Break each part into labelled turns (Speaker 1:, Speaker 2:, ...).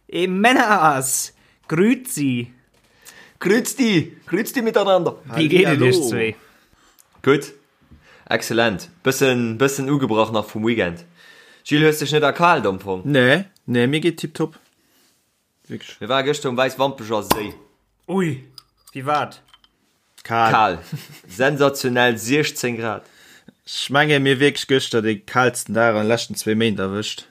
Speaker 1: Ey Männers! Grüezi!
Speaker 2: Grüezi! Grüezi miteinander!
Speaker 1: Wéi geet et iech zwee?
Speaker 2: Gutt, excellent. Bëssen, bëssen ugebrach nach vum Weekend. Gilles, hues dech net erkaalt am Fong?
Speaker 3: Nee, nee, mir geet tiptop.
Speaker 2: Wierklech. Mir ware gëschter um Wäiswampecher Séi.
Speaker 1: Ui, wéi war et?
Speaker 2: Kal. Kal. Sensationell 16 Grad.
Speaker 3: Ech menge mir wierklech gëschter dee kaalsten Dag an de leschten zwee Méint erwëscht.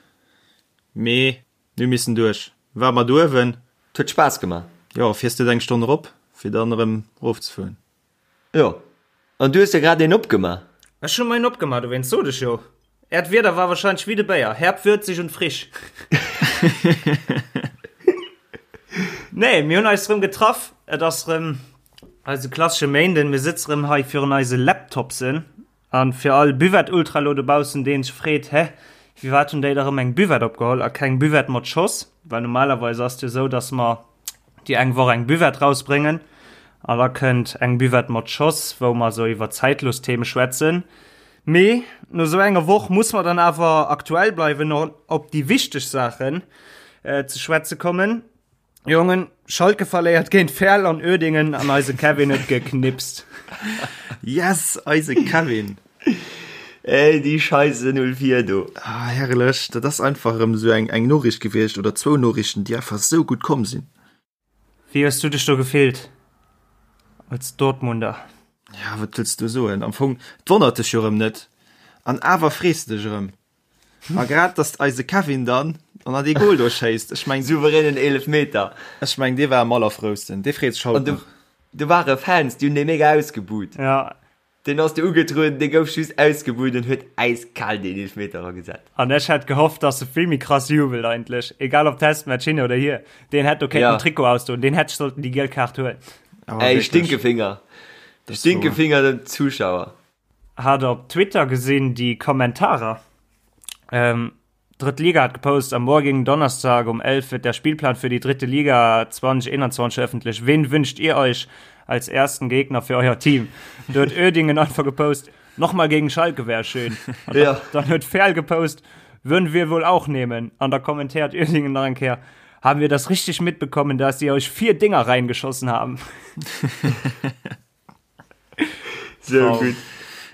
Speaker 3: Mee mir hu missen duerch. War mat uewen.
Speaker 2: Et huet Spaass gemaach.
Speaker 3: Jo, fiers net eng Stonn erop, fir dann erëm erofzefueren.
Speaker 2: Jo, an du hues der grad een opgemaach.
Speaker 1: Ech hu mer een opgemaach, dowéinst sot ech jo. Äert Wieder war wahrscheinlech wéi de Béier, herb, würzig und frisch. Nee, mir hunn eis rëm getraff. Et ass rëm eise klassesche Méinden. Mir sëtze rëm hei virun eise Laptopsen. An fir all Buvette-Ultra lo dobaussen, deen sech freet, Hä, firwat hunn déi da rëm eng Buvette opgeholl a keng Buvette mat Schoss? Well normalerweis ass et jo esou, dass mer déi eng Woch eng Buvette rausbréngen an da kënnt eng Buvette mat Schoss, wou mer esou iwwer zeitlos Theme schwätzen. Mee no esou enger Woch muss mer dann awer aktuell bleiwen an op déi wichteg Saachen ze schwätze kommen. Jongen, Schalke verléiert géint Verl an Uerdingen an eise Kevin huet geknipst.
Speaker 3: Yes, eise Kevin!
Speaker 2: Ey, déi Scheisse 04 do.
Speaker 3: Ah, herrlech, dat ass einfach erëm esou eng, eng Noriicht gewiescht oder zwou Noriichten, déi einfach esou gutt komm sinn.
Speaker 1: Wéi hues du dech do gefillt als Dortmunder?
Speaker 3: Ja, wat wëlls du soen? Am Fong, et wonnert dech jo erëm net an awer frees de dech erëm. A grad dass eise Kevin dann an an dee Goal do schéisst, ech meng
Speaker 2: Souveränen Eelefmeter.
Speaker 3: Ech meng dee war am allerfrousten, dee freet sech haut
Speaker 2: nach. Do ware Fans, déi hunn dee mega ausgebuht.
Speaker 1: Ja.
Speaker 2: Deen ass do ugetrueden, dee gouf just ausgebuht an huet äiskal deen Eelefmeter eragesat.
Speaker 1: An ech hätt gehofft, dass e vill méi krass jubelt eigentlech, egal ob Testmatch hin oder hier. Deen hätt do kéinten den Trikot ausdoen, deen hätt sollten déi giel Kaart huelen.
Speaker 2: Ey, Stinkefinger. Stinkefinger dem Zuschauer.
Speaker 1: Hat op Twitter gesinn déi Kommentarer. Ähm, Drëtt Liga hat gepost, am morgigen Donnerstag um 11 wird der Spielplan für die dritte Liga 2021 veröffentlicht. Wen wünscht ihr euch als ersten Gegner für euer Team? Do huet Uerdingen einfach gepost, nochmal gegen Schalke wär schön. An ja. Dann huet Verl gepost, würden wir wohl auch nehmen. An da kommentiert Uerdingen nach eng Kéier, haben wir das richtig mitbekommen, dass sie euch vier Dinger reingeschossen haben?
Speaker 2: So gutt.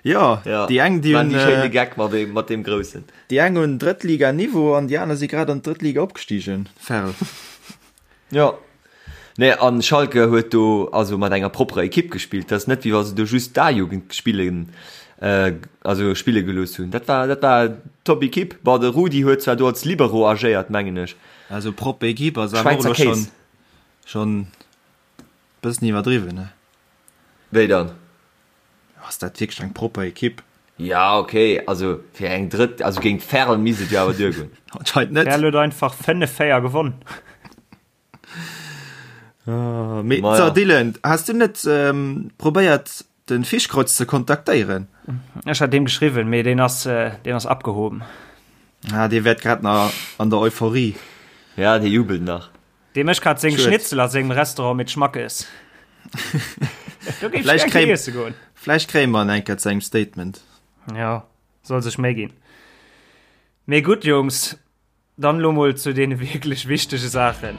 Speaker 3: Ja, ja. déi eng
Speaker 2: déi hunn äh, Geck mat dem, mat dem groussen.
Speaker 3: Déi eng hunn Drëttliga-Niveau an déi aner si grad an d'Drëttliga opgestigen. Ferl.
Speaker 2: Ja. Nee, an Schalke huet do also mat enger propperer Ekipp gespillt. Dat ass net wéi wa se do just d'A-Jugend spillen äh, also spille gelooss hunn. Dat war dat war top Ekipp. Bon, de Rudi huet zwar do als Libero agéiert, mengen ech.
Speaker 3: Also propper Ekipp ass awer och elo
Speaker 2: schonn
Speaker 3: schonn Bëssen iwwerdriwwen, ne?
Speaker 2: Wéi dann?
Speaker 3: Ass dat wierklech eng propper Ekipp?
Speaker 2: Ja, ok, also fir eng drëtt, also géint Verl misst et jo awer duergoen.
Speaker 3: Anscheinend net.
Speaker 1: Verl huet einfach 5, 4 gewonnen.
Speaker 3: Mee so, Dylan, has du net probéiert den Fischkreuz ze kontaktéieren?
Speaker 1: Ech hat deem geschriwwen, mee deen ass, deen ass abgehoben.
Speaker 3: Ah, dee wäert grad nach an der Euphorie.
Speaker 2: Ja, dee jubelt nach.
Speaker 1: Dee mécht grad seng Schnitzel a sengem Restaurant mit Schmackes.
Speaker 3: Do géif ech gär iesse goen. Vläicht kréie mer en eng Kéier zu engem Statement.
Speaker 1: Jo, soll sech Méi ginn. Mee gutt, Jungs, dann elo mol zu deene wierklech wichtege Saachen,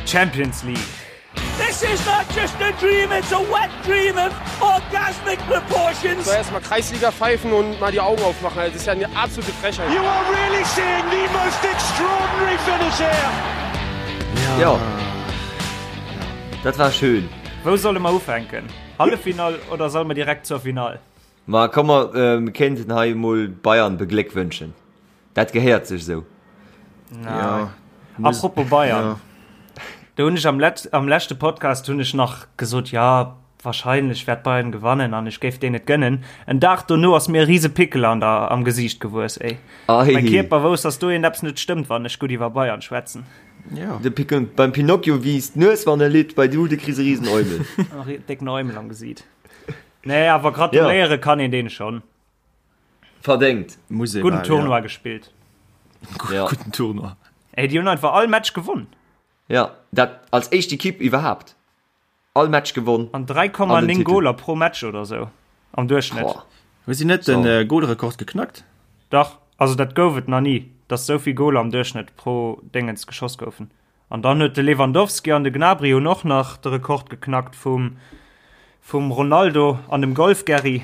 Speaker 1: Champions League.
Speaker 4: This is not just a dream, it's a wet dream of orgasmic proportions.
Speaker 5: So erstmal Kreisliga pfeifen und mal die Augen aufmachen, das ist ja eine absolute Frechheit.
Speaker 4: You are really seeing the most extraordinary finish here.
Speaker 2: Ja. Dat war schön.
Speaker 1: Wou solle mer ufänken? Halleffinall oder solle mer direkt zur Finall?
Speaker 2: Ma komm mer ähm, kéinten hei emol Bayern begléckwënschen. Dat gehéiert sech esou.
Speaker 1: Ja. Apropos Bayern. Ja. Do hunn ech am, Let am leschte Podcast hunn ech nach gesot, ja, wahrscheinlech wäert Bayern gewannen an ech géif deen et gënnen. En Dag dono ass mir e riese Pickel an der, am Gesiicht gewuess, ey.
Speaker 2: Ei.
Speaker 1: Mein Kierper wousst, dass do eppes net stëmmt, wann ech gutt iwwer Bayern schwätzen.
Speaker 2: Ja. De Pickel, beim Pinocchio wiisst d'Nues, wann e litt, bei du, du kriss e riesen Eumel.
Speaker 1: Décken Eumel am Gesiit. Nee, awer gratuléiere ja. kann een deen schon.
Speaker 2: Verdéngt.
Speaker 3: Muss
Speaker 1: Guten mal, Tournoi ja. gespillt.
Speaker 3: Ja. Guten Tournoi.
Speaker 1: Ey, die hunn einfach all Match gewonnen.
Speaker 2: Ja, dat als éischt Ekipp iwwerhaapt. All Match gewonnen.
Speaker 1: An 3,9 Goler pro Match oder sou am Duerchschnitt.
Speaker 3: Hu si net den so. Golrekord geknackt?
Speaker 1: Dach, also dat gouf et nach nie, dass souvill Goler am Duerchschnitt pro Dingens geschoss goufen. An dann huet de Lewandowski an de Gnabry hunn och nach de Rekord geknackt vum vum Ronaldo an dem Golf-Gerry.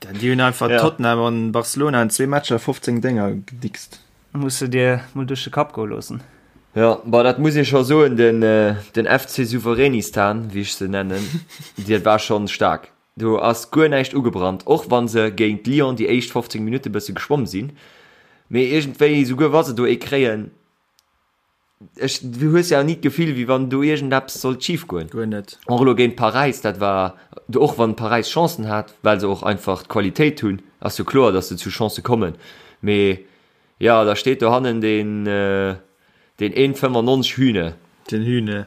Speaker 3: Dann déi hunn einfach ja. Tottenham an Barcelona an zwee Matcher 15 Dénger gedickst.
Speaker 1: Muss de dir mol duerch de Kapp goe loossen.
Speaker 2: Ja, bah, dat muss ee scho soen, den, äh, den FC Souveränistan, wéi ech se nennen, dat war schonn staark. Do ass guer näischt ugebrannt, och wa se géint Lyon déi éischt 15 Minutte bësse geschwomm sinn. Mee iergendwéi, souguer wa se do ee kréien, ech, du hues ja ni d'Gefill, wéi wann do iergendeppes sollt schif goen.
Speaker 3: Guer net.
Speaker 2: Och elo géint Paräis, dat war, och wann Paräis Chancen hat, well se och einfach d'Qualitéit hunn, ass jo kloer, datt se zu Chancë kommen. Mee jo, da steet dohannen deen, deen 1,95 Hühne.
Speaker 3: Den Hühne.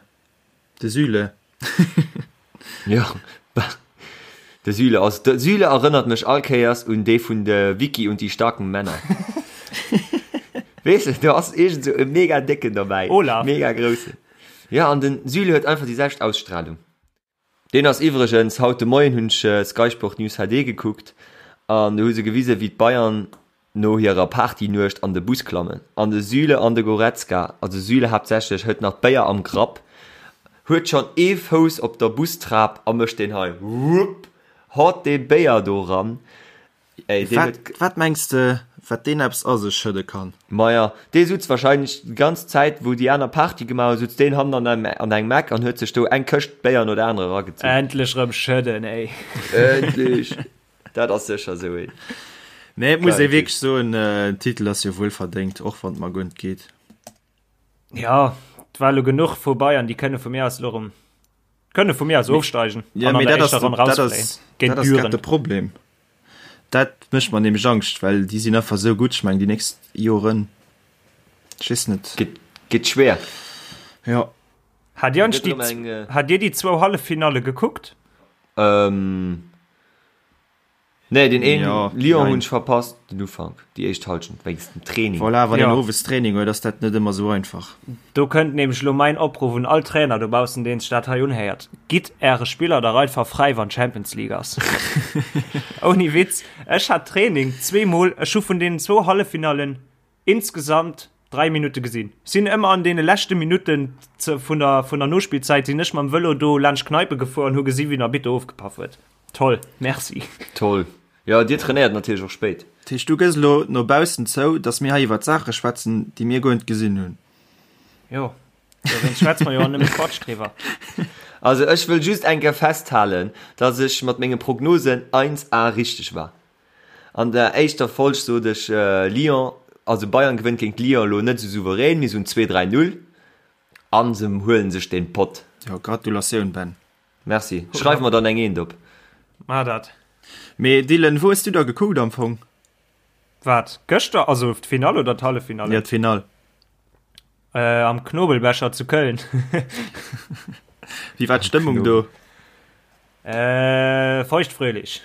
Speaker 3: De Süle.
Speaker 2: Jo, de Süle ass, de Süle erënnert mech all Kéiers un dee vun de Wickie und die starken Männer. Weess de, do ass iergend sou e mega décken dobäi.
Speaker 1: Olaf.
Speaker 2: Mega groussen. Jo, an den Süle huet einfach déi selwecht Ausstrahlung. Deen ass iwwregens, haut de Moien hunn ech Sky Sport News HD gekuckt an do hu se gewisen, wéi d'Bayern no hirer Partynuecht an de Bus klammen an de Süle an de Goretzka, also Süle haaptsächlech, huet nach d'Béier am Grapp, huet schonn ee Fouss op der Bustrap a mécht deen hei, wupp, haut dee Béier do ran.
Speaker 3: Ey, deen huet. Wat mengs de, wat deen eppes a sech schëdde kann?
Speaker 2: Maja, dee sutz wahrscheinlech déi ganz Zäit, wou déi aner Party gemaach hunn, sutz deen hannen an an engem Eck an huet sech do eng Këscht Béier no der anerer eragezunn.
Speaker 1: Endlech rëm schëdden, ey.
Speaker 2: Endlech! Dat ass sécher esou een.
Speaker 3: Nee, et muss ee wierklech soen, den Titel ass jo wuel verdéngt, och wann et mer guer net geet.
Speaker 1: Ja, et war elo genuch vu Bayern, déi kënne vu mir aus elo erëm, kënne vu mir aus ofsteigen
Speaker 3: Ja, an an mee der dat ass éischter Ronn dat rausfléien ass, géint dat ass grad Düren. de Problem. Dat mécht mer nämlech Angscht, well déi sinn einfach esou gutt. Ech mengen, déi nächst Joren, ech weess net.
Speaker 2: Gëtt, gëtt schwéer.
Speaker 3: Jo.
Speaker 1: Hat Dir eigentlech déi, eng, äh, hat Dir déi zwou Halleffinalle gekuckt?
Speaker 2: Ähm, Nee, den een ja, Lyon hunn ech verpasst, den Ufank, déi éischt Halschent wéinst dem Training.
Speaker 3: Voilà, wann ja. een owes Training huet, ass dat net ëmmer sou einfach.
Speaker 1: Do kënnt nämlech lo mäin Opruff un all Trainer dobaussen, deen sech dat hei unhéiert, Gitt äre Spiller dach einfach fräi, wann Champions League ass. Ouni Witz, ech hat Training zweemol, ech hu vun deenen zwou Halleffinallen Insgesamt 3 Minutte gesinn. Sinn ëmmer an deene leschte Minutten vun der, vun der Nospillzäit sinn ech mam Vëlo do laanscht Kneipe gefuer an hu gesi wéi den Arbitter ofgepaff huet. Toll, merci.
Speaker 2: Toll. Jo, dir trainéiert natierlech och spéit.
Speaker 3: Dat heescht, du gëss elo no baussen zou, datt mir hei iwwert Saache schwätzen, déi mir guer net gesinn hunn?
Speaker 1: Jo, dowéinst schwätze mer jo och nëmme Quatsch driwwer.
Speaker 2: Also ech wëll just eng Kéier festhalen, datt ech mat menge Prognosen 1A richteg war. An der éischter Folg sot ech Lyon, also Bayern gewënnt géint Lyon elo net esou souverän, mee esou en 2, 3, 0 an se huelen sech den Pott.
Speaker 3: Jo, Gratulatioun Ben.
Speaker 2: Merci. Schreif mer dann eng Eent op.
Speaker 1: Maach dat.
Speaker 3: Mee Dylan, wou hues du da gekuckt am Fong?
Speaker 1: Wat, gëschter? Also d'Finall oder d'Halleffinall?
Speaker 3: Jo, d'Finall.
Speaker 1: Äh, am Knobelbecher zu Köln.
Speaker 3: Wéi war d'Stëmmung do?
Speaker 1: Äh, feuchtfröhlich.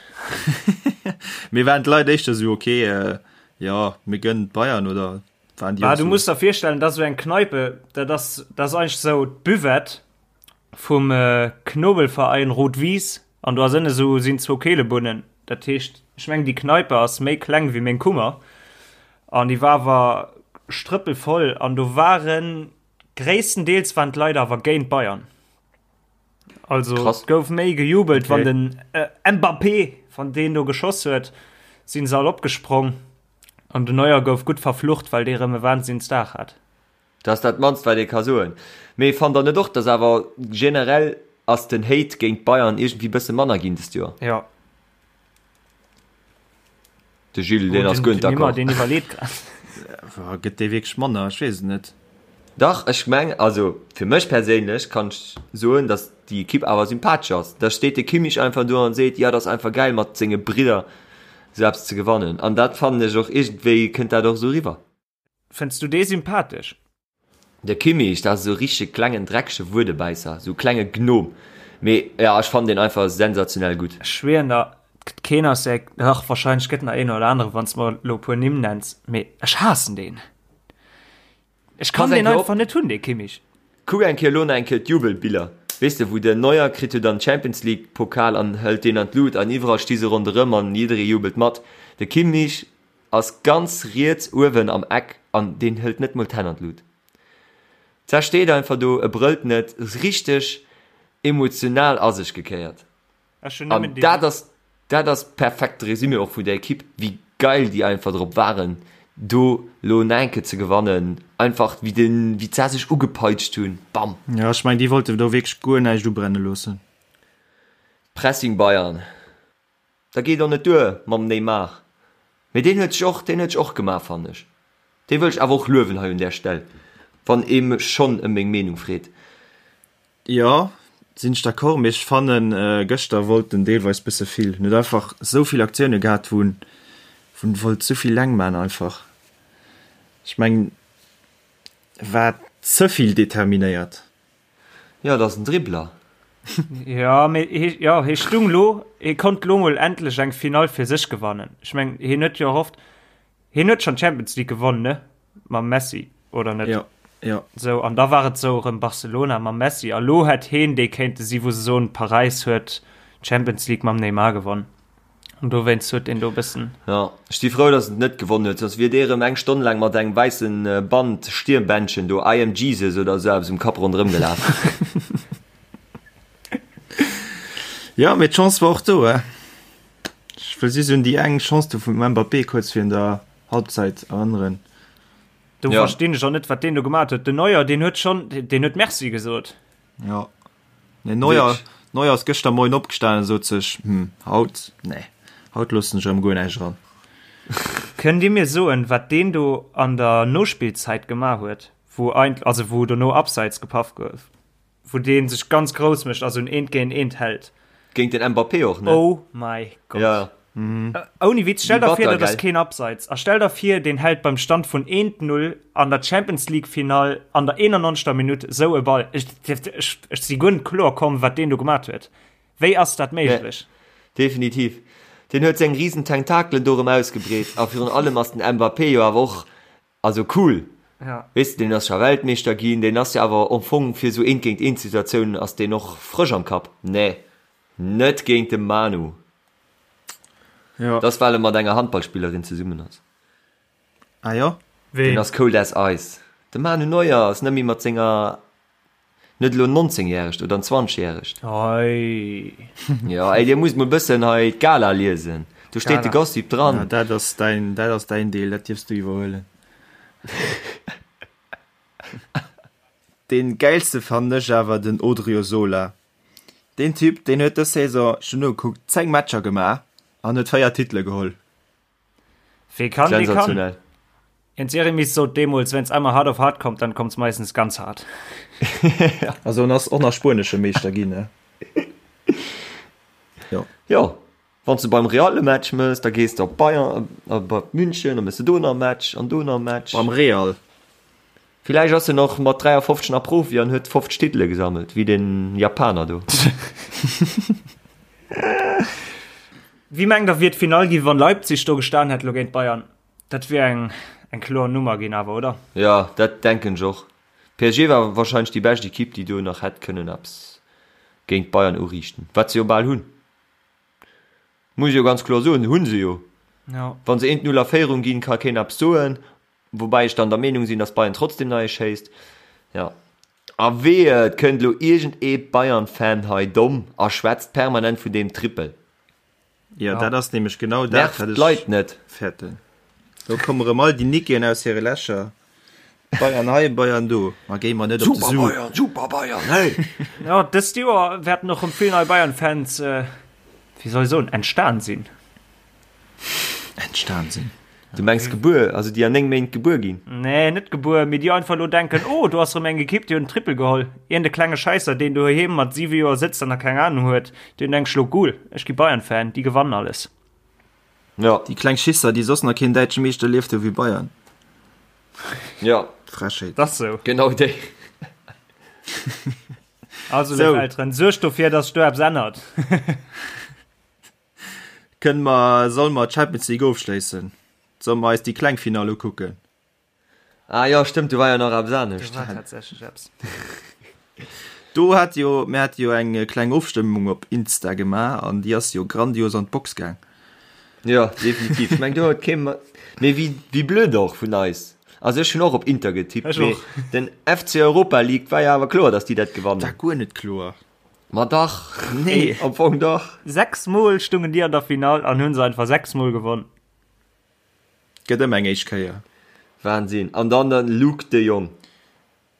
Speaker 3: Mee waren d'Leit éischter sou, okay, äh, jo, mir gönnen d'Bayern oder
Speaker 1: waren déi Ah, du muss der virstellen, dat ass sou eng Kneipe, dat ass, dat ass eigentlech sou d'Buvette vum äh, Knobelverein Rot-Wies an do ass ënne sou, sinn zwou Keelebunnen. Dat heescht, ech mengen, déi Kneipe ass méi kleng wéi meng Kummer an déi war awer strëppelvoll an do waren, gréisstendeels waren d'Leit awer géint Bayern. Also Krass. gouf méi gejubelt, okay. wann den äh, Mbappé van deen do geschoss huet, sinn se all opgesprong. An den Neuer gouf gutt verflucht, well dee rëm e Wahnsinnsdag hat.
Speaker 2: Dat ass dat mannst wat ee ka soen. Mee fannt der net och, dass awer generell ass den Hate géint Bayern iergendwéi bësse manner ginn dëst Joer?
Speaker 1: Ja.
Speaker 2: De Gilles, deen ass guer net d'accord.
Speaker 1: Deen iwwerleet grad.
Speaker 3: Gëtt dee wierklech manner? Ech weess et net.
Speaker 2: Dach, ech meng, also fir mech perséinlech kann ech soen, datt déi Ekipp awer sympathesch ass. Da steet de Kimmich einfach do an seet, jo, dat ass einfach gäil mat senge Bridder esou eppes ze gewannen. An dat fannen ech och, iergendwéi kënnt dat och esou eriwwer.
Speaker 1: Fënns du dee sympathesch?
Speaker 2: De Kimmich, dat ass esou e richtege klengen dreckege Wuedebäisser, esou e klenge Gnom. Mee jo, ech fannen deen einfach sensationell gutt.
Speaker 1: Ech schwieren der, et gëtt keen aus der, dach wahrscheinlech gëtt nach een oder anere wann s mer elo e puer Nimm nenns, mee ech haassen deen. Ech kann deen einfach net hunn, dee Kimmich.
Speaker 2: Kuck eng Kéier elo nach eng Kéier d'Jubelbiller, weess de, wou den Neuer kritt jo dann d'Champions League Pokal an hëlt deen an d'Lut an iwwerall sti se ronderëm an jidderee jubelt mat. De Kimmich Ass ganz riets uewen am Eck an deen hëlt net mol d'Hänn an d'Lut. D'Sa steet einfach do, e brëllt net, richteg emotional a sech gekéiert.
Speaker 1: Ech hunn
Speaker 2: An
Speaker 1: nëmmen déi.
Speaker 2: dat ass, dat ass perfekte Résumé och vun der Equipe, wéi geil déi einfach drop waren, do lo Naenke ze gewannen. Einfach wéi den, wéi d'Sa sech ugepeitscht hunn, bam!
Speaker 3: Jo, ech mengen, déi wollte do wierklech guer näischt ubrenne loossen.
Speaker 2: Pressing Bayern. Da geet och net duer mam Neymar. Mee deen huet sech och, deen huet sech och gemaach, fannen ech. Dee wëll ech awer och luewen hei un där Stell, wann ee mech schonn ëm meng Meenung freet.
Speaker 3: Jo, sinn ech d'accord, mee ech fannen gëschter wollt en deelweis bësse vill. En huet einfach esou vill Aktioune gehat, wou en, wou en wollt esou vill leng man einfach. Ech mengen, war ze vill determinéiert.
Speaker 2: Jo, et ass en Dribbler.
Speaker 1: Jo, mee hie, jo, hie stung lo, hie konnt lo mol endlech eng Finall fir sech gewannen. Ech meng, hien huet jo erhofft, hien huet schonn d'Champions League gewonnen, ne? Mam Messi, oder net?
Speaker 3: Jo, jo.
Speaker 1: Sou, an da war et sou erëm Barcelona mam Messi. A lo hätt hien dee kéinte si wou se soen, Paräis huet d'Champions League mam Neymar gewonnen. An dowéinst huet deen do e bëssen.
Speaker 2: Jo, ech si frou, dass en et net gewonnen huet, soss wier dee rëm eng Stonn laang mat engem wäisse Band, Stirnbändchen do, I am Jesus oder esou eppes um Kapp ronderëm gelaf.
Speaker 3: Jo, mee d'Chance war och do, eh. Ech wëll just un déi eng Chance do vum Mbappé kuerz virun der Halbzeit erënneren.
Speaker 1: Do verstinn ech och net, wat deen do gemat huet. Den Neuer, deen huet schonn, deen huet Merci gesot.
Speaker 3: Jo. Nee, Neuer, Neuer ass gëschter Moien opgestanen a sot sech, Hm, haut, nee, haut loossen ech erëm guer näischt eran.
Speaker 1: Kënnt Dir mir soen, wat deen do an der Nospillzäit gemaach huet, wou eint, also wou dono Abseits gepaff gouf, wou dee sech ganz grouss mécht a sou en Eent géint Eent hält?
Speaker 2: Géint den Mbappé och, ne?
Speaker 1: Oh mäi Gott.
Speaker 2: Ja.
Speaker 1: Ouni Witz, stell der vir,
Speaker 2: Bitter,
Speaker 1: dat ass
Speaker 2: gell?
Speaker 1: keen Abseits. A stell der vir, deen hält beim Stand vun 1, 0 an der Champions League Finall an der 91. Minutt sou e Ball. Ech, ech, ech si guer net kloer komm, wat deen do gemat huet. Wéi ass dat méiglech?
Speaker 2: Definitiv. Deen huet seng riesen Tentakelen do erëm ausgebreet. A virun allem ass den Mbappé jo awer och, also cool.
Speaker 1: Ja.
Speaker 2: Weess de, deen ass scho Weltmeeschter ginn, deen ass jo awer am Fong fir sou Eent-géint-eent-Situatiounen ass deen och frësch am Kapp. Nee, net géint de Manu.
Speaker 3: Ja.
Speaker 2: Das well e mat enger Handballspillerin zesummen ass.
Speaker 3: Ah jo?
Speaker 2: Deen
Speaker 1: Ween?
Speaker 2: ass cold as ice. De Manu Neuer ass net méi mat senger, net elo 19 järegt oder en 20 järegt.
Speaker 1: Hei.
Speaker 2: Jo, ey, dir musst mol bëssen hei d'Gala liesen. Do steet de
Speaker 1: Gala.
Speaker 2: Gossip dran.
Speaker 3: Ja, dat ass däin, dat ass däin Deel, dat dierfs du iwwerhuelen. Dee gäilste fannen ech awer den Odriozola. Deen Typ, deen huet dës Saison, ech hunn nogekuckt, 10 Matcher gemaach an huet 4 Titele geholl.
Speaker 1: Wee kann, dee kann.
Speaker 2: Sensationell.
Speaker 1: Jens Jeremies sot deemools, Wenn's einmal hart auf hart kommt, dann kommt's meistens ganz hart.
Speaker 3: Also en ass och nach spuenesche Meeschter ginn, ne? Jo.
Speaker 2: Jo, wann s de beim Real e Match mëss, da gees de op Bayern, op München, da mëss de do nach e Match an do nach e Match.
Speaker 3: Beim Real.
Speaker 2: Villäicht ass en och mat 53 nach Profi an huet 50 Titele gesammelt, wéi den Japaner do.
Speaker 1: Wéi mengt der wier d'Finall ginn, wann Leipzig do gestan hätt lo géint Bayern? Dat wier eng eng kloer Nummer ginn awer, oder?
Speaker 2: Jo, dat denken ech och. PSG war wahrscheinlech déi bescht Equipe, déi do nach hätt kënnen eppes géint Bayern uriichten, wat se jo bal hunn. Muss ech jo ganz kloer soen, hunn se jo.
Speaker 1: Jo.
Speaker 2: Wa se 1, 0 a Féierung ginn, ka keen eppes soen. Woubäi ech dann der Meenung sinn, dass Bayern trotzdem nach ee schéisst. Jo. A wehe, et kënnt elo iergend ee Bayern-Fan hei domm a schwätzt permanent vun deem Trippel.
Speaker 3: Jo, dat ass nämlech genau dat,
Speaker 2: Nervt
Speaker 3: wat ech
Speaker 2: d'Leit net.
Speaker 3: fäerten. Do komme rëm all déi Nickeen aus hire Lächer. Bayern hei, Bayern do. Ma géi mer net op de
Speaker 2: Super
Speaker 3: Su.
Speaker 2: Bayern, super Bayern, hey!
Speaker 1: Jo, dëst Joer wäerten och rëm vill nei Bayern-Fans, wéi soll ech soen, entstan sinn.
Speaker 3: Entstan sinn.
Speaker 2: Du mengs gebuer, also déi an 9 Méint gebuer ginn?
Speaker 1: Nee, net gebuer, mee déi einfach elo denken, oh, do ass erëm eng Ekipp, déi huet en Triple geholl. Iergend e klenge Schäisser, deen doheem mat 7 Joer sëtzt an nach keng Anung huet, deen denkt sech elo, Cool, ech gi Bayern-Fan, déi gewannen alles.
Speaker 2: Jo.
Speaker 3: Déi kleng Schisser, déi soss nach keen däitsche Meeschter erlieft hu wéi Bayern.
Speaker 2: Jo.
Speaker 3: Frechheet.
Speaker 1: Dat ass sou.
Speaker 2: Genau déi.
Speaker 1: Also, léif Elteren, suergt dofir, dass sech do eppes ännert.
Speaker 3: Kënne mer, solle mer d'Champions League ofschléissen? Solle mer eis déi kleng Finall ukucken?
Speaker 2: Ah jo, stëmmt, do war jo nach eppes anescht.
Speaker 1: Do war tatsächlech eppes.
Speaker 3: Do hat jo, mir hate jo eng kleng Ofstëmmung op Insta gemaach an déi ass jo grandios an d'Box gaang.
Speaker 2: Jo, definitiv. Ech meng, do huet kee, mee wéi, wéi blöd och vun eis. Also ech hunn och op Inter getippt,
Speaker 1: Ech
Speaker 2: mee
Speaker 1: och.
Speaker 2: den FC Europa League war jo awer kloer, dass déi dat gewannen.
Speaker 3: War guer net kloer.
Speaker 2: Ma dach.
Speaker 3: Nee.
Speaker 2: Am Fong dach.
Speaker 1: 6 mol stungen déi an der Finall an hunn se einfach 6 mol gewonn.
Speaker 3: Gëtt ëmmer eng éischt Kéier.
Speaker 2: Wahnsinn. An dann den Luuk de Jong.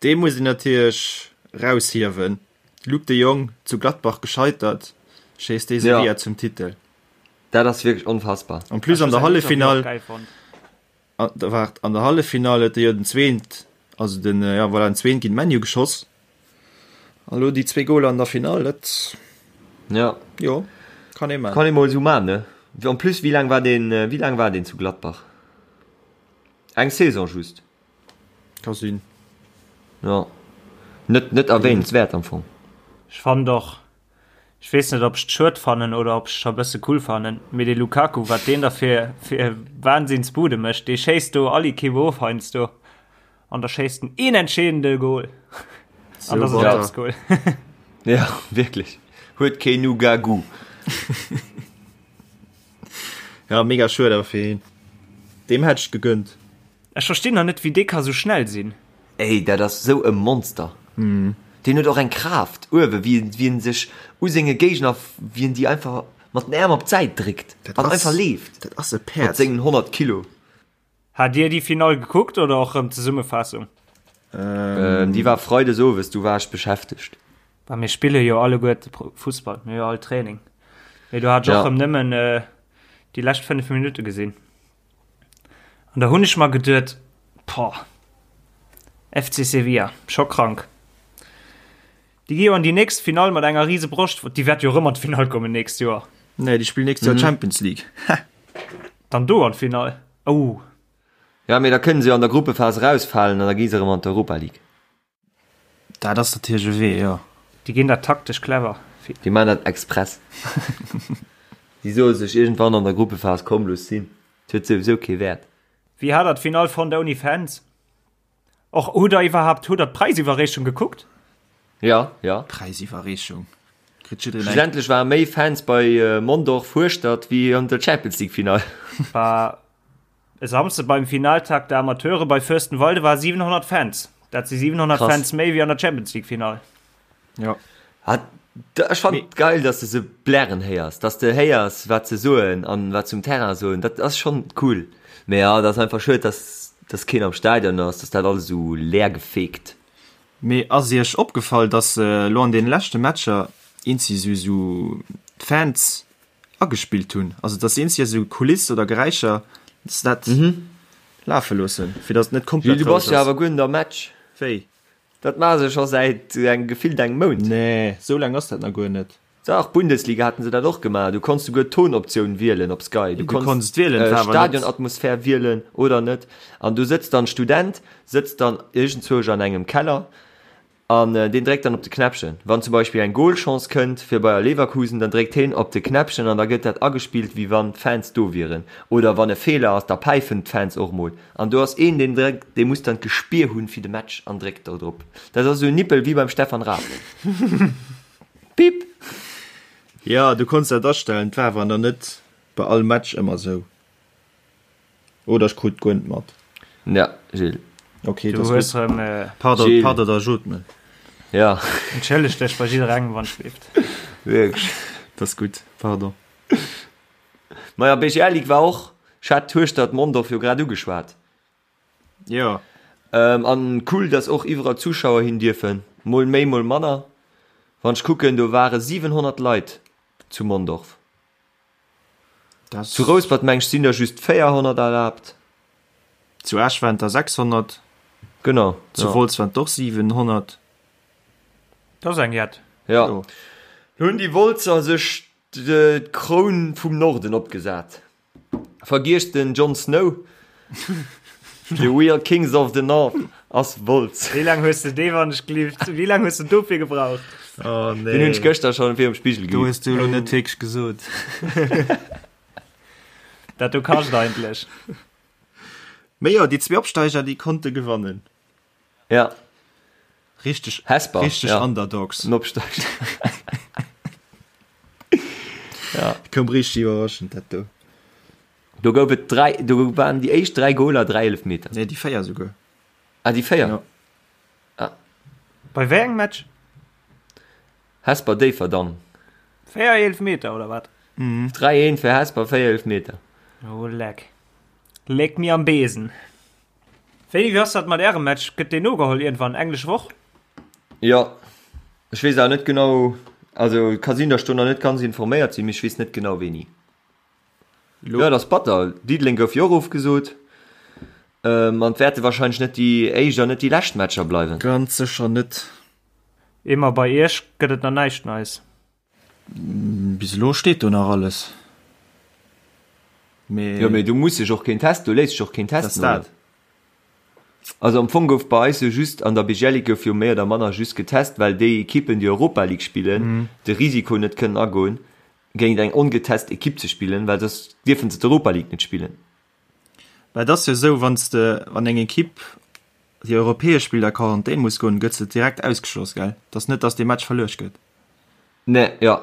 Speaker 3: Dee muss een natierlech raushiewen. Luuk de Jong, zu Gladbach gescheitert, schéisst dee Sevilla zum Titel.
Speaker 2: Dat ass wierklech onfassbar.
Speaker 3: En plus an der Halleffinall, waart, an der Halleffinall huet e jo den zweent, also den, ja voilà, den zweent géint ManU geschoss. An elo déi zwee Goler an der Finall, dat,
Speaker 2: Ja.
Speaker 3: jo, kann ee man.
Speaker 2: Kann ee mol esou man, ne? En plus, wéi laang war deen, wéi laang war deen zu Gladbach? Eng Saison just.
Speaker 3: Ka sinn.
Speaker 2: Jo. Net, net erwähnenswäert am Fong.
Speaker 1: Ech fannen och, ech weess net ob ech et schued fannen oder ob ech et scho bësse cool fannen, mee dee Lukaku, wat deen da fir, fir Wahnsinnsbude mécht, dee schéisst do all Equipe of heiansdo an da schéisst en een entscheedende Goal an da ass et
Speaker 2: Ja.
Speaker 1: Goal.
Speaker 2: Ja, wierklech. Huet keen Nugagu.
Speaker 3: Ja, mega schued awer fir hien. Deem hätt ech et gegönnt.
Speaker 1: Ech verstinn nach net wéi dee ka sou schnell sinn.
Speaker 2: Ey, dat ass sou e Monster. Deen huet och eng Kraaft uewe wéi wéi en sech u senge Géigner, wéi en déi einfach mat den Äerm op d'Säit dréckt an einfach leeft.
Speaker 3: Dat ass e Päerd.
Speaker 2: Mat sengen 100 Kilo.
Speaker 1: Hat dir déi Finall gekuckt oder och rëm d'Zesummefaassung?
Speaker 2: Déi war Freides owes, du war ech beschäftegt.
Speaker 1: Bah mir spille jo alleguerte Fussball, mir hu jo all Training. Mee do hat ech och rëm nëmmen déi lescht 5 Minutte gesinn. An da hunn ech mer geduet, Poah, FC Sevilla, scho krank. Déi gi jo an déi nächst Finall mat enger rise Broscht. Déi wäerte jo erëm an d'Finall kommen nächst Joer.
Speaker 3: Nee, déi spillen nächst Joer Champions League.
Speaker 1: Dann do an d'Finall. Oh.
Speaker 2: Ja, mee da kënne se jo an der Gruppephas erausfalen an da gi se erëm an d'Europa League.
Speaker 3: Dat ass natierlech e Wee, jo.
Speaker 1: Déi ginn dat taktesch clever.
Speaker 2: Déi maachen dat express. Déi soe sech iergendwann an der Gruppephas, komm looss sinn, et huet souwisou kee Wäert.
Speaker 1: Wéi hat der d'Finall fonnt ouni Fans? Och hutt der iwwerhaapt, hutt der d'Präisiwwerreechung gekuckt?
Speaker 2: Jo, jo.
Speaker 3: Präisiwwerreechung? Kritt jiddereen eng?
Speaker 2: Schlussendlech ware méi Fans bei Mondorf Hueschtert wéi an der Champions League Finall.
Speaker 1: War E Samsde beim Finaltag der Amateure bei Fürstenwalde war 700 Fans. Dat si 700
Speaker 2: Krass.
Speaker 1: Fans méi wéi an der Champions League Finall.
Speaker 3: Ja.
Speaker 2: Ah, da, ech fand geil, dass de se blären héiers, dass de héiers, wat se soen an wat se um Terrain soen. Dat ass schon cool. Mee ja, dat ass einfach schued, dass, dass keen am Stadion ass, dass dat alles esou leer gefegt.
Speaker 3: Mee ass iech opgefall, dass elo an deene leschte Matcher eenzi sou d'Fans agespillt hunn, also dass se eenzi esou Kuliss oder Geräischer, dass se dat lafe loossen, fir dass et net komplett
Speaker 2: Gilles, du
Speaker 3: roueg
Speaker 2: bass jo
Speaker 3: ass.
Speaker 2: awer guer net am Match.
Speaker 3: Wéi?
Speaker 2: Dat maache se scho säit engem gefillt engem Mount.
Speaker 3: Nee, esou laang ass dat nach guer net.
Speaker 2: Dach, Bundesliga haten se dat och gemaach. Du konns souguer d'Tonoptioun wielen op Sky. Du
Speaker 3: Du konns et wielen,
Speaker 2: äh,
Speaker 3: war awer net.
Speaker 2: Stadionatmosphär wielen oder net. An du sëtzt dann Student, sëtzt dann iergendzwousch an engem Keller An deen dréckt dann op de Knäppchen. Wann zum Beispill eng Goalchance kënnt fir Bayer Leverkusen, dann dréckt heen op de Knäppchen an da gëtt dat agespillt, wéi wann d'Fans do wieren. Oder wann e Feeler ass, da päifen d'Fans och mol. An do ass een, deen dréckt, dee muss dann d'Gespier hunn fir de Match an dréckt do drop. Dat ass esou en Nippel wéi beim Stefan Raab. Pip!
Speaker 3: Jo, du konns dat astellen, et war awer nach net bei all Match ëmmer esou. Oder ech krut guer net mat.
Speaker 2: Ja, Gilles.
Speaker 3: Okay,
Speaker 1: Du hues rem äh,
Speaker 3: Pardon,
Speaker 2: Gilles.
Speaker 3: pardon, da jot me.
Speaker 2: Ja,
Speaker 1: Entschëlleg dech bei jidderengem wann schleeft.
Speaker 2: wierklech.
Speaker 3: Das ist gut, pardon.
Speaker 2: Maja, BGL Ligue war och, ech hat Hueschtert Mondorf jo grad ugeschwat.
Speaker 3: Jo.
Speaker 2: Ähm, an cool, dass och iwwerall Zuschauer hin dierfen. Mol méi, mol manner. Wann ech kucken, do ware 700 Leit zu Mondorf.
Speaker 3: Das
Speaker 2: Zu Rouspert meng ech sinn der just 400 erlaabt.
Speaker 3: Zu Esch waren der 600.
Speaker 2: Genau.
Speaker 3: Zu
Speaker 2: ja.
Speaker 3: Wolz waren et och 700.
Speaker 1: Dat ass eng jett.
Speaker 2: Ja.
Speaker 3: Jo.
Speaker 2: Hunn déi Wolzer sech d'Kroun vum Norden opgesat. Vergiesst den Jon Snow. The real kings of the North ass Wolz.
Speaker 1: Wéi laang hues de dee wann ech gelift? Wéi laang hues de dofir gebraucht?
Speaker 3: Oh nee.
Speaker 2: Den hunn ech gëschter schonn virum Spigel
Speaker 3: Do
Speaker 2: geübt.
Speaker 3: hues du elo net wierklech gesot.
Speaker 1: Dat do kascht eigentlech.
Speaker 3: Mee jo, déi zwee Opsteiger, déi konnte gewannen.
Speaker 2: Ja.
Speaker 3: Richteg,
Speaker 2: Hesper,
Speaker 3: richteg
Speaker 2: ja.
Speaker 3: Underdogs.
Speaker 2: En Opsteiger.
Speaker 3: Ja. Koum richteg iwwerraschend, dat do.
Speaker 2: Do gouf et 3, do waren déi éischt 3 Goler 3 Eelefmeter.
Speaker 3: Nee, déi 4 esouguer.
Speaker 2: Ah, déi 4? Jo.
Speaker 1: Ah. Bei wéi engem Match?
Speaker 2: Hesper Déifferdang.
Speaker 1: 4 Eelefmeter oder wat?
Speaker 2: Mhm. 3 1 fir Hesper, 4 Eelefmeter.
Speaker 1: Oh leck. Leck mir am Besen. Wéini, wéi ass dat mat ärem Match? Gëtt deen nogeholl iergendwann? Englesch Woch?
Speaker 2: Jo, ech weess awer net genau, also ka sinn, datt ech do nach net ganz informéiert sinn, mee ech weess net genau wéini. Jo, et ass batter. Diddeleng gouf jo och ofgesot. An et wäerte warscheinlech net déi éischt an net déi lescht Matcher bleiwen.
Speaker 3: Ganz sécher net.
Speaker 1: Emer, bei iech gëtt et nach näischt Neis?
Speaker 3: Bis elo steet do nach alles.
Speaker 2: Mee. Jo, mee do muss sech och keen test, do léisst sech och keen testen, oder? Also am Fong gouf bei eis jo just, an der BGL Ligue gouf jo méi oder manner just getest, well déi Ekippen, déi Europa League spillen, de Risiko net kënnen agoen, géint eng ongetest Ekipp ze spillen, well soss dierfe se d'Europa League net spillen.
Speaker 3: Mä et ass jo esou, wann s de, wann eng Ekipp, déi europäesch spillt, a Quarantän muss goen, gëtt se direkt ausgeschloss, gell? Et ass net, datt dee Match verluecht gëtt.
Speaker 2: Nee, jo.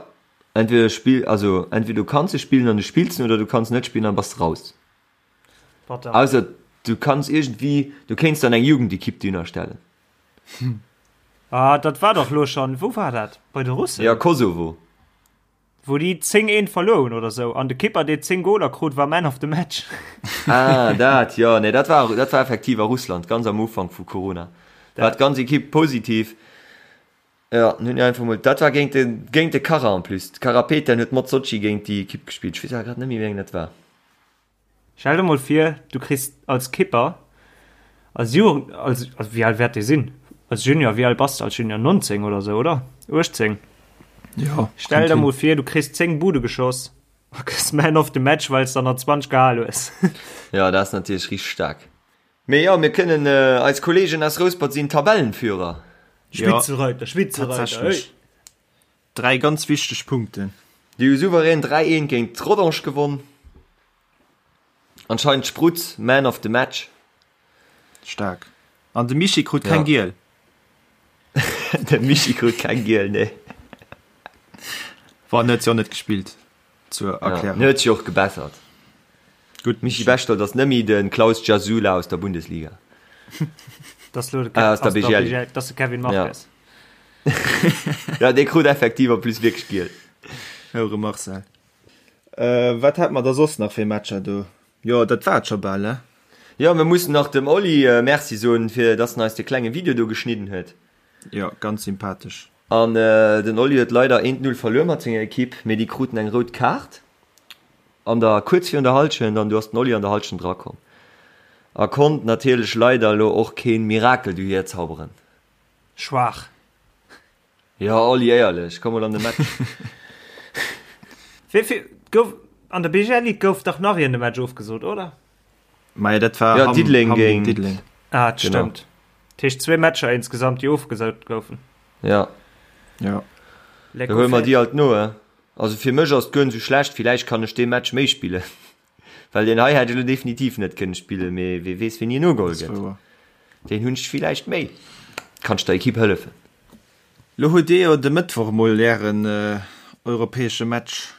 Speaker 2: Entweder spill, also entweder du kanns e spillen an du spills en oder du kanns net spillen an bass de raus.
Speaker 1: Batter.
Speaker 2: Ausser du kanns iergendwéi, du kéints dann eng Jugendekipp dohinner stellen.
Speaker 1: Ah, dat war dach lo schon, wou war dat? Bei de Russen?
Speaker 2: Ja, Kosovo.
Speaker 1: Wou déi 10 eent verluer hunn oder sou an de Kipper dee 10 Goler krut war Man of the Match.
Speaker 2: Ah, dat, jo, nee, dat war, dat war effektiv a Russland, ganz am Ufank vu Corona. War d'ganz Ekipp positiv. Jo, hunn déi einfach mol, dat war géint de, géint de Kara en plus. De Karapetian huet mat Sotschi géint déi Ekipp gespillt. Ech weess awer grad net méi, wéi eng dat war.
Speaker 1: Stell der mol vir, du kriss als Kipper, als Jugend, als, also wéi al wäert dee sinn? Als Junior, wéi al bass de als Junior? 19 oder sou, oder? 18?
Speaker 3: Jo,
Speaker 1: Stell der mol vir, du kriss 10 Bude geschoss a gëss Man of the Match, well s der nach 20 gehal hues.
Speaker 2: Jo, dat ass natierlech richteg staark. Mee jo, mir kënnen, eis Kolleegen aus Rouspert sinn Tabellenführer.
Speaker 1: Spitzenreiter, Spitzenreiter, hey!
Speaker 3: Tatsächlech. Dräi ganz wichteg Punkten.
Speaker 2: Déi hu souverän 3, 1 géint Rodange gewonn. Anscheinend Sprutz Man of the Match.
Speaker 3: Staark. An de Michi krut keng Giel.
Speaker 2: De Michi krut keng Giel, nee.
Speaker 3: Bon, en huet jo net gespillt, zur Erklärung.
Speaker 2: En huet sech och gebessert.
Speaker 3: Gutt,
Speaker 2: Michi Bechtold ass net méi de Klaus Gjasula aus der Bundesliga.
Speaker 1: Das lo de
Speaker 2: Aus der BGL.
Speaker 1: Das de Kevin Marques.
Speaker 2: Ja, dee krut effektiv en plus wierklech giel.
Speaker 3: Houre Marcel. Wat hat mer da soss nach fir Matcher do? Jo, dat war et scho bal, ne?
Speaker 2: Jo, mir mussen nach dem Oli Merci soen, fir dass en eis de klenge Video do geschnidden huet.
Speaker 3: Jo, ganz sympathesch.
Speaker 2: An den Oli huet leider 1, 0 verluer mat senger Ekipp, mee déi kruten eng rout Kaart an der kuerz virun der Hallschent an du ass den Oli an der Hallschent erakomm a konnt natierlech leider elo och keen Mirakel dohier zauberen.
Speaker 1: Schwaach.
Speaker 2: Jo Oli, éierlech, komm mol an de Match.
Speaker 1: Wéi vill gouf an der BGL Ligue gouf dach nach een de Match ofgesot, oder?
Speaker 3: Maja dat war
Speaker 2: Ja,
Speaker 3: Hamm,
Speaker 2: Diddeleng
Speaker 3: Hamm géint
Speaker 2: géint
Speaker 3: Diddeleng.
Speaker 1: Ah, dat
Speaker 2: Genau.
Speaker 1: stëmmt. Dat heescht zwee Matcher insgesamt, déi ofgesot goufen.
Speaker 2: Ja.
Speaker 3: Ja.
Speaker 2: Da huele mer déi alt no, he? Also fir mech ass et guer net esou schlecht, villäicht kann ech dee Match méi spillen. Well deen hei hätt ech elo definitiv net kënne spillen, mee wee weess wéini en ugeholl gëtt. Deen hunn ech villäicht méi. Kann ech der Ekipp hëllefen.
Speaker 3: Lo hutt dir jo de Mëttwoch mol ären europäesche Match.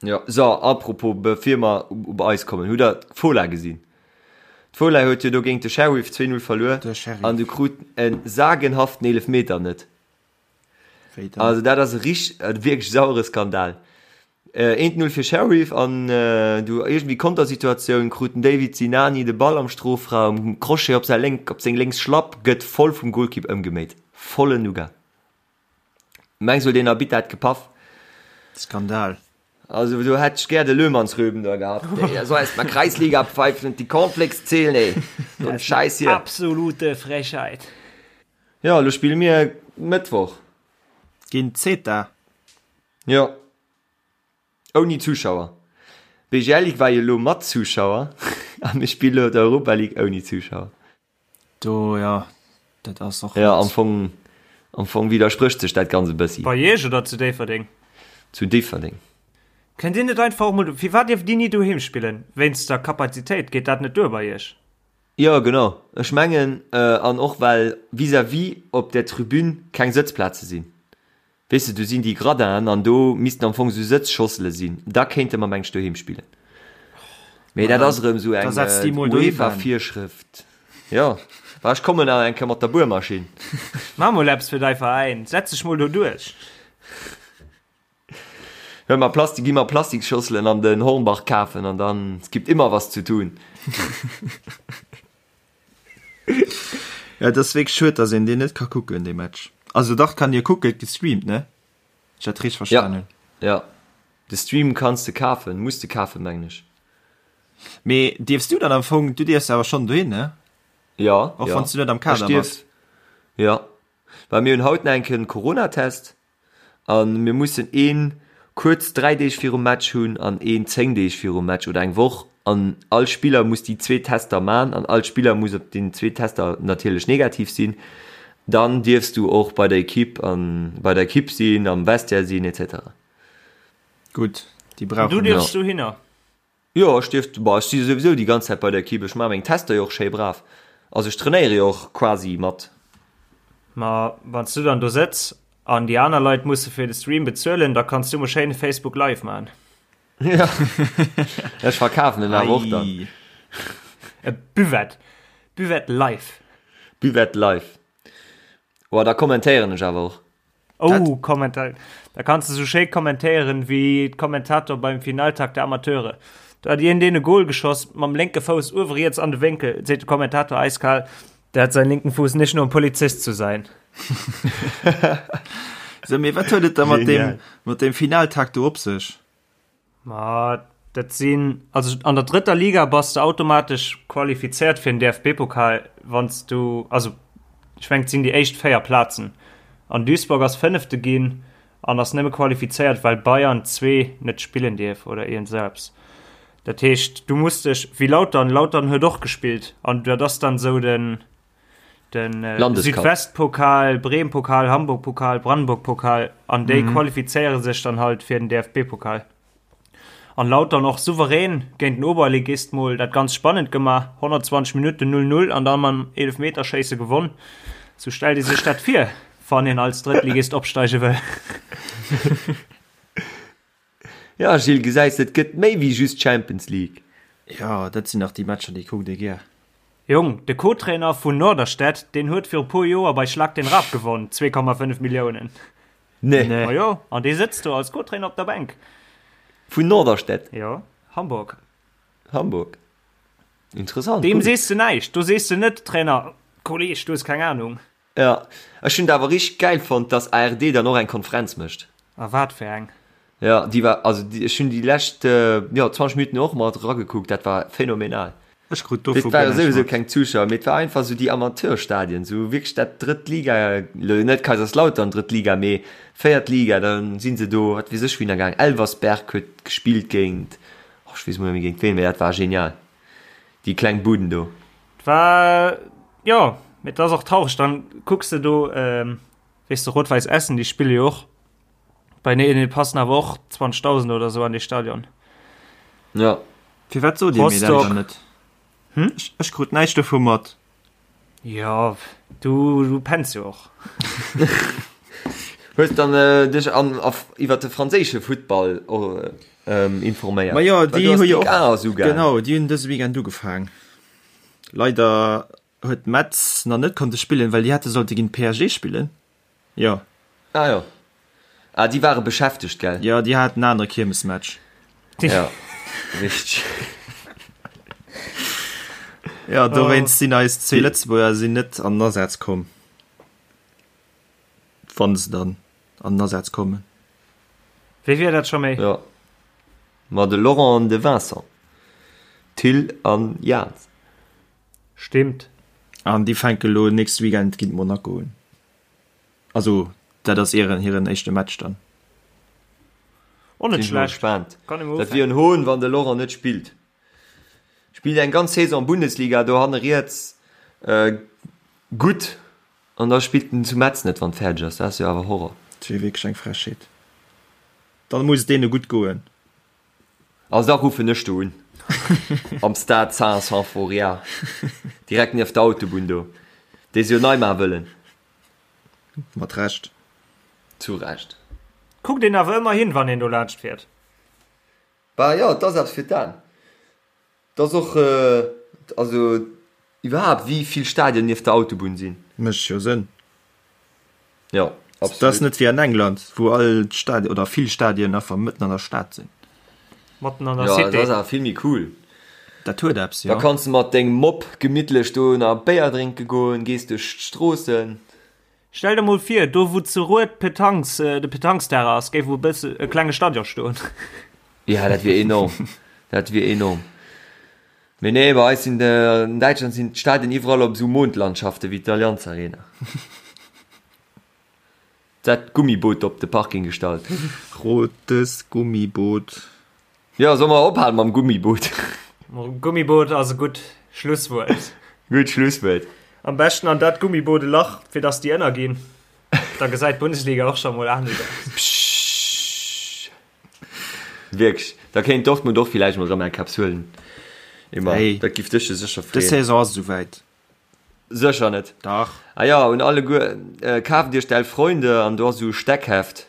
Speaker 2: Jo, so, apropos, bevir mer op eis kommen, hutt der d'Fola gesinn? D'Fola huet jo do géint de Sheriff 2-0 verluer an du krut e sagenhaften Eelefmeter net.
Speaker 3: Wéi dann?
Speaker 2: Also dat ass e rich, e wierklech sauere Skandal. Eent 0 fir Sheriff an du iergendwéi Kontersituatioun krut den David Sinani de Ball am Strofraum, Crochet op säi lénk, op seng lénks Schlapp, gëtt voll vum Golkipp ëmgeméit. Vollen Nougat. Mengs huet een Arbitter dat gepaff?
Speaker 3: Skandal.
Speaker 2: Also do hätt ech gär de Löhmannsröben da gehabt. Ey, der soll erst mal Kreisliga pfeifen und die Cornflakes zählen, ey. So ein Scheiß hier.
Speaker 1: Absolute Frechheit.
Speaker 2: Jo, elo spille mir Mëttwoch.
Speaker 3: Géint Zeta.
Speaker 2: Jo. Ouni Zuschauer. BGL Ligue war jo elo mat Zuschauer a mir spille elo d'Europa League ouni Zuschauer.
Speaker 3: Do, jo, dat ass och
Speaker 2: Jo, am Fong, am Fong widdersprécht sech dat Ganz e bëssi.
Speaker 1: Bei Iech oder zu Déifferdeng?
Speaker 2: Zu Déifferdeng.
Speaker 1: Kënnt Dir net einfach och mol, firwat dierft Dir ni doheem spillen? Wéinst der Kapazitéit, geet dat net duer bei Iech?
Speaker 2: Jo, genau. Ech mengen, an och well vis-à-vis op der Tribün keng Sëtzplaze sinn. Weess de, do sinn déi Gradinen an do missten am Fong esou Sëtzschossele sinn. Da kéinte mer, meng ech, doheem spillen. Mee dat ass erëm esou
Speaker 3: eng
Speaker 2: UEFA-Virschrëft. Jo, ma ech kommen nach eng Kéier mat der Buermaschinn.
Speaker 1: Maach mol eppes fir dei Veräin, setz dech mol do duerch.
Speaker 2: Huel mer Plastik, gi mer Plastiksschosselen an den Hornbach kafen an dann, es gibt immer was zu tun.
Speaker 3: Ja, et ass wierklech schued, dass een deen net ka kucken, dee Match. Also dach, kann ee kucken, et gestreamt, ne? Ech dat richteg verstanen hunn.
Speaker 2: Ja, ja. De Stream kanns de kafen, muss de kafen, mengen ech.
Speaker 3: Mee dierfs du dann am Fong, du dierfs awer schonn dohin, ne?
Speaker 2: Ja,
Speaker 3: Och
Speaker 2: ja.
Speaker 3: wann s du net am Kader
Speaker 2: Ech dierf,
Speaker 3: bass.
Speaker 2: ja. Well mir hunn haut nach eng Kéier den Coronatest an mir mussen een kuerz 3 Deeg virum Match hunn an een 10 Deeg virum Match oder eng Woch an all Spiller muss déi zwee Tester man an all Spiller muss op den zwee Tester natierlech negativ sinn. Dann dierfs du och bei der Equipe an bei der Equipe sinn, am Vestiaire sinn etc.
Speaker 3: Gutt, déi brauchen
Speaker 1: Du dierfs dohinner?
Speaker 2: Jo, ech dierf, bah, ech si souwisou déi ganz Zäit bei der Equipe, ech maache meng Tester jo och schéi brav. Also ech trainéiere jo och quasi mat.
Speaker 1: Ma wann s du dann do sëtz an déi aner Leit musse fir de Stream bezuelen, da kanns du mol schéin e Facebook Live maachen.
Speaker 2: Ja, ech verkafen en awer och dann.
Speaker 1: E Buvette, Buvette Live.
Speaker 2: Buvette Live. Oh, da kommentéieren ech awer och.
Speaker 1: Oh, kommentéieren. Da kanns de sou schéi kommentéieren wéi d'Kommentator beim Finaltag der Amateure. Do hat iergendeen e Goal geschoss, mam lénke Fouss uewe riets an de Wénkel, seet de Kommentator eiskal, Der hat seinen linken Fuß nicht nur um Polizist zu sein.
Speaker 3: So, mee wat huet et da mat dem, mat dem Finaltag do op sech?
Speaker 1: Ma dat sinn, also an der drëtter Liga bass de automatesch qualifizéiert fir den DFB-Pokal, wann s du, also ech mengen et sinn déi éischt 4 Plazen. An Duisburg ass Fënnefte ginn an ass nëmme qualifizéiert, well Bayern 2 net spillen dierf oder iergend esou eppes. Dat heescht, du muss dech, wéi Lautern, Lautern huet och gespillt an dat ass dann esou den, den
Speaker 2: Landescup.
Speaker 1: Südwestpokal, Bremen-Pokal, Hamburg-Pokal, Brandenburg-Pokal an déi qualifizéiere sech dann halt fir den DFB-Pokal. An Lautern och souverän géint den Oberligist mol dat ganz spannend gemaach, 120 Minutten 0-0 an dann mam Eelefmeterschéisse gewonn. Sou stellt ee sech dat vir, wann een als Drëttligist opsteige wëll.
Speaker 2: Ja Gilles, gesäis de, et gëtt méi wéi just Champions League.
Speaker 3: Jo, dat sinn dach déi Matcher, déi kuckt ee gär.
Speaker 1: Jong, de Co-Trainer vun Norderstedt, deen huet viru puer Joer bei Schlag den Raab gewonn, 2,5 Milliounen.
Speaker 2: Nee.
Speaker 1: Ma jo, an dee sëtzt do als Co-Trainer op der Bänk.
Speaker 2: Vun Norderstedt?
Speaker 1: Jo, Hamburg.
Speaker 2: Hamburg. Interessant.
Speaker 1: Deem sees de näischt. Do sees de net, Trainer, Kolleg, du hues keng Ahnung.
Speaker 2: Jo, ech hunn et awer richteg gäil fonnt, dass ARD dann och eng Konferenz mécht.
Speaker 1: A wat fir eng?
Speaker 2: Jo, déi war, also ech hunn déi lescht, jo, 20 Minutten och mat eragekuckt, dat war phänomenal.
Speaker 3: Ech krut dovu
Speaker 2: Et ware
Speaker 3: guer näischt
Speaker 2: souwisou
Speaker 3: mat.
Speaker 2: keng Zuschauer, mee et war einfach esou déi Amateurstadien, esou wierklech dat drëtt Liga, elo net Kaiserslautern drëtt Liga, mee véiert Liga, da si se do, wat weess ech wouhinner gaang, Elversberg huet gespillt géint, oh ech weess emol net méi géint ween, mee dat war genial. Déi kleng Buden do.
Speaker 1: War jo, mee et ass och traureg, dann kucks de do, weess de, Rot-Wäiss Essen, déi spille jo och bei nee, nee, passen awer och 20.000 oder sou an dee Stadion.
Speaker 2: Ja.
Speaker 3: Firwat sot Dir mir dat dann net? Hm? Ech, ech krut näischt dovu mat.
Speaker 1: Jo, du, du penns jo och.
Speaker 2: Hues dann äh, dech an, auf, iwwer de franséische Futtball äh, informéiert?
Speaker 3: Ma jo, déi hu jo
Speaker 2: och,
Speaker 3: genau, déi hunn dëse Weekend ugefaang. Leider huet Metz nach net konnte spillen, well déi hätte sollte géint PSG spillen. Jo.
Speaker 2: Ah jo. Ah, déi ware beschäftegt, gell?
Speaker 3: Jo, déi haten en anere Kiermesmatch.
Speaker 2: Ja, richteg.
Speaker 3: Jo, dowéinst sinn eis zwee Lëtzebuerger sinn net an den Asaz komm. Wann se dann an den Asaz kommen.
Speaker 1: Wéi wier dat scho méi?
Speaker 2: Jo. Ma de Laurent an de Vincent. Thill an Jans.
Speaker 1: Stimmt.
Speaker 3: An déi fänke lo nächste Weekend géint Monaco un. Also dat ass ieren hiren éischte Match dann.
Speaker 1: Och net
Speaker 2: Sinn ech mol
Speaker 1: schlecht.
Speaker 2: gespaant.
Speaker 1: Kann ee mol
Speaker 2: Dat wier
Speaker 1: ufänken.
Speaker 2: en Hohn, wann de Laurent net spillt. Spillt eng ganz Saison Bundesliga do hanne riets gutt an da spillt en zu Metz net, wann fäerdeg ass. Dat ass jo awer Horror.
Speaker 3: Dat wier wierklech eng Frechheet. Dann muss et deene gutt goen.
Speaker 2: Also da ruffen ech do un. Am Stade Saint-Symphorien. Direkt nieft der Autobunn do. Déi se jo nei maache wëllen.
Speaker 3: Mat Recht.
Speaker 2: Zu Recht.
Speaker 1: Kuckt een awer ëmmer hin, wann een do laanscht fiert.
Speaker 2: Bah jo, et ass eppes fir d'Aen. Et ass och, also iwwerhaapt wéi vill Stadien nieft der Autobunn sinn.
Speaker 3: Mécht jo Sënn.
Speaker 2: Jo,
Speaker 3: absolut. Dat ass net wéi an England, wou all d'Stadien oder vill Stadien einfach mëtten an der Stad sinn.
Speaker 1: Matten an der Cité.
Speaker 2: Jo, dat ass awer vill méi cool.
Speaker 3: Dat huet eppes, jo.
Speaker 2: Da kanns de mat dengem Mopp gemittlech do nach e Béier drénke goen, gees duerch d'Stroossen.
Speaker 1: Stell der mol vir, do wou zu Rued d'Petanques, de Petanques-Terrain ass, géif e bësse e klenge Stadion stoen.
Speaker 2: Ja, dat wier enorm. Dat wier enorm. Mee nee, bei eis sinn, an Däitschland sinn d'Stadien iwwerall op esou Mondlandschaften wéi d'Allianz Arena. Dat Gummiboot op de Parking gestallt.
Speaker 3: Rotes Gummiboot.
Speaker 2: Jo, solle mer ophalen mam Gummiboot?
Speaker 1: Gummiboot ass e gutt Schlusswuert.
Speaker 2: Gutt Schlusswuert.
Speaker 1: Am beschten an dat Gummiboot e Lach, fir dass déi ënnerginn. Da gesäit d'Bundesliga och scho mol anescht aus.
Speaker 2: Pschschsch. Wierklech, da kéint Dortmund och villäicht mol erëm eng Kaps huelen. Emma,
Speaker 3: Hey,
Speaker 2: dat giff dech jo sécher
Speaker 3: dës
Speaker 2: freeën.
Speaker 3: Saison ass et esouwäit.
Speaker 2: Sécher net.
Speaker 3: Dach.
Speaker 2: Ah jo, un alleguer, kaaft iech d'Elf Freunde an do ass esou e Steckheft,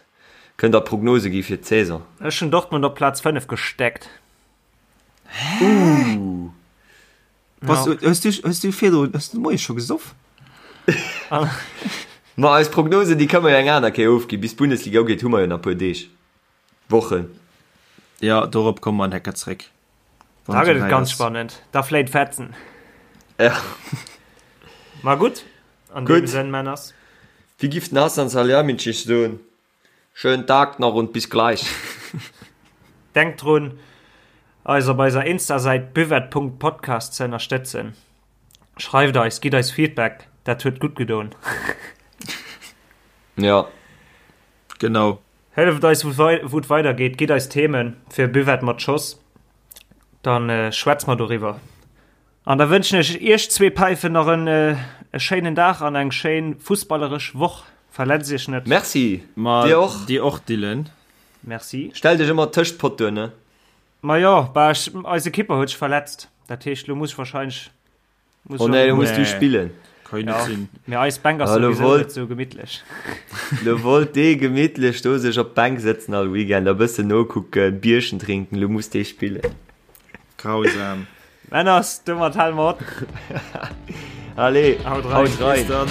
Speaker 2: kënnt der Prognose gi fir d'Saison.
Speaker 1: Ech hunn Dortmund op Plaz 5 gesteckt.
Speaker 3: Hä?
Speaker 2: Ooh.
Speaker 3: Was, ja. Hues du, hues du virdrun, hues du de Moie scho gesoff?
Speaker 2: Ma eis Prognosen, déi kënne mer jo eng aner Kéier ofginn. Bis d'Bundesliga ugeet, hu mer jo nach e puer Deeg, Wochen.
Speaker 3: Ja, dorop komme mer en Hecker zréck.
Speaker 1: Da gëtt et ganz spannend. Da fléit Fetzen.
Speaker 2: Ja.
Speaker 1: Ma gutt, an deem Sënn, Männers.
Speaker 2: Wéi giff den Hasan Salihamidzic soen, Schönen Tag nach und bis gleich.
Speaker 1: Denkt drun, eis op eiser Insta-Säit buvette.podcast ze ënnerstëtzen. Schreift eis, gitt eis Feedback, dat huet gutt gedoen.
Speaker 2: Ja.
Speaker 3: Genau.
Speaker 1: Hëlleft eis wou et weider geet, gitt eis Themen fir Buvette mat Schoss, dann schwätz mer doriwwer. An da wënschen ech iech zwee Päifen nach en e schéinen Dag an eng schéin fussballeresch Woch. Verletzt iech net.
Speaker 2: Merci,
Speaker 3: Ma
Speaker 2: dir och.
Speaker 3: Dir och Dylan.
Speaker 1: Merci.
Speaker 2: Stell dech ëmmer tëscht d'Pottoen, ne?
Speaker 1: Ma jo, bah ech, eise Kipper huet sech verletzt, dat heescht lo muss ech wahrscheinlech
Speaker 2: Muss oh nee, lo muss du spillen.
Speaker 3: Kann net sinn.
Speaker 1: Mee eis Bänk ass souwisou net sou gemittlech.
Speaker 2: Lo wollt dee gemittlech do sech op d'Bänk sëtzen all Weekend a bëssen nokucken, Bierchen drinken, lo muss dee spillen.
Speaker 3: Grausam.
Speaker 1: Männers, domat hale mer op.
Speaker 2: Allez,
Speaker 1: haut rein.
Speaker 2: Haut rein.
Speaker 3: Bis dann.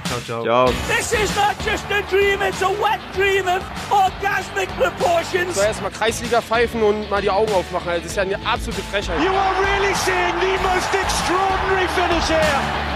Speaker 1: Ciao, ciao.
Speaker 2: Ciao.
Speaker 4: This is not just a dream, it's a wet dream of orgasmic proportions.
Speaker 5: So erstmal Kreisliga pfeifen und mal die Augen aufmachen. Also, das ist ja eine absolute Frechheit.
Speaker 4: You are really seeing the most extraordinary finish here.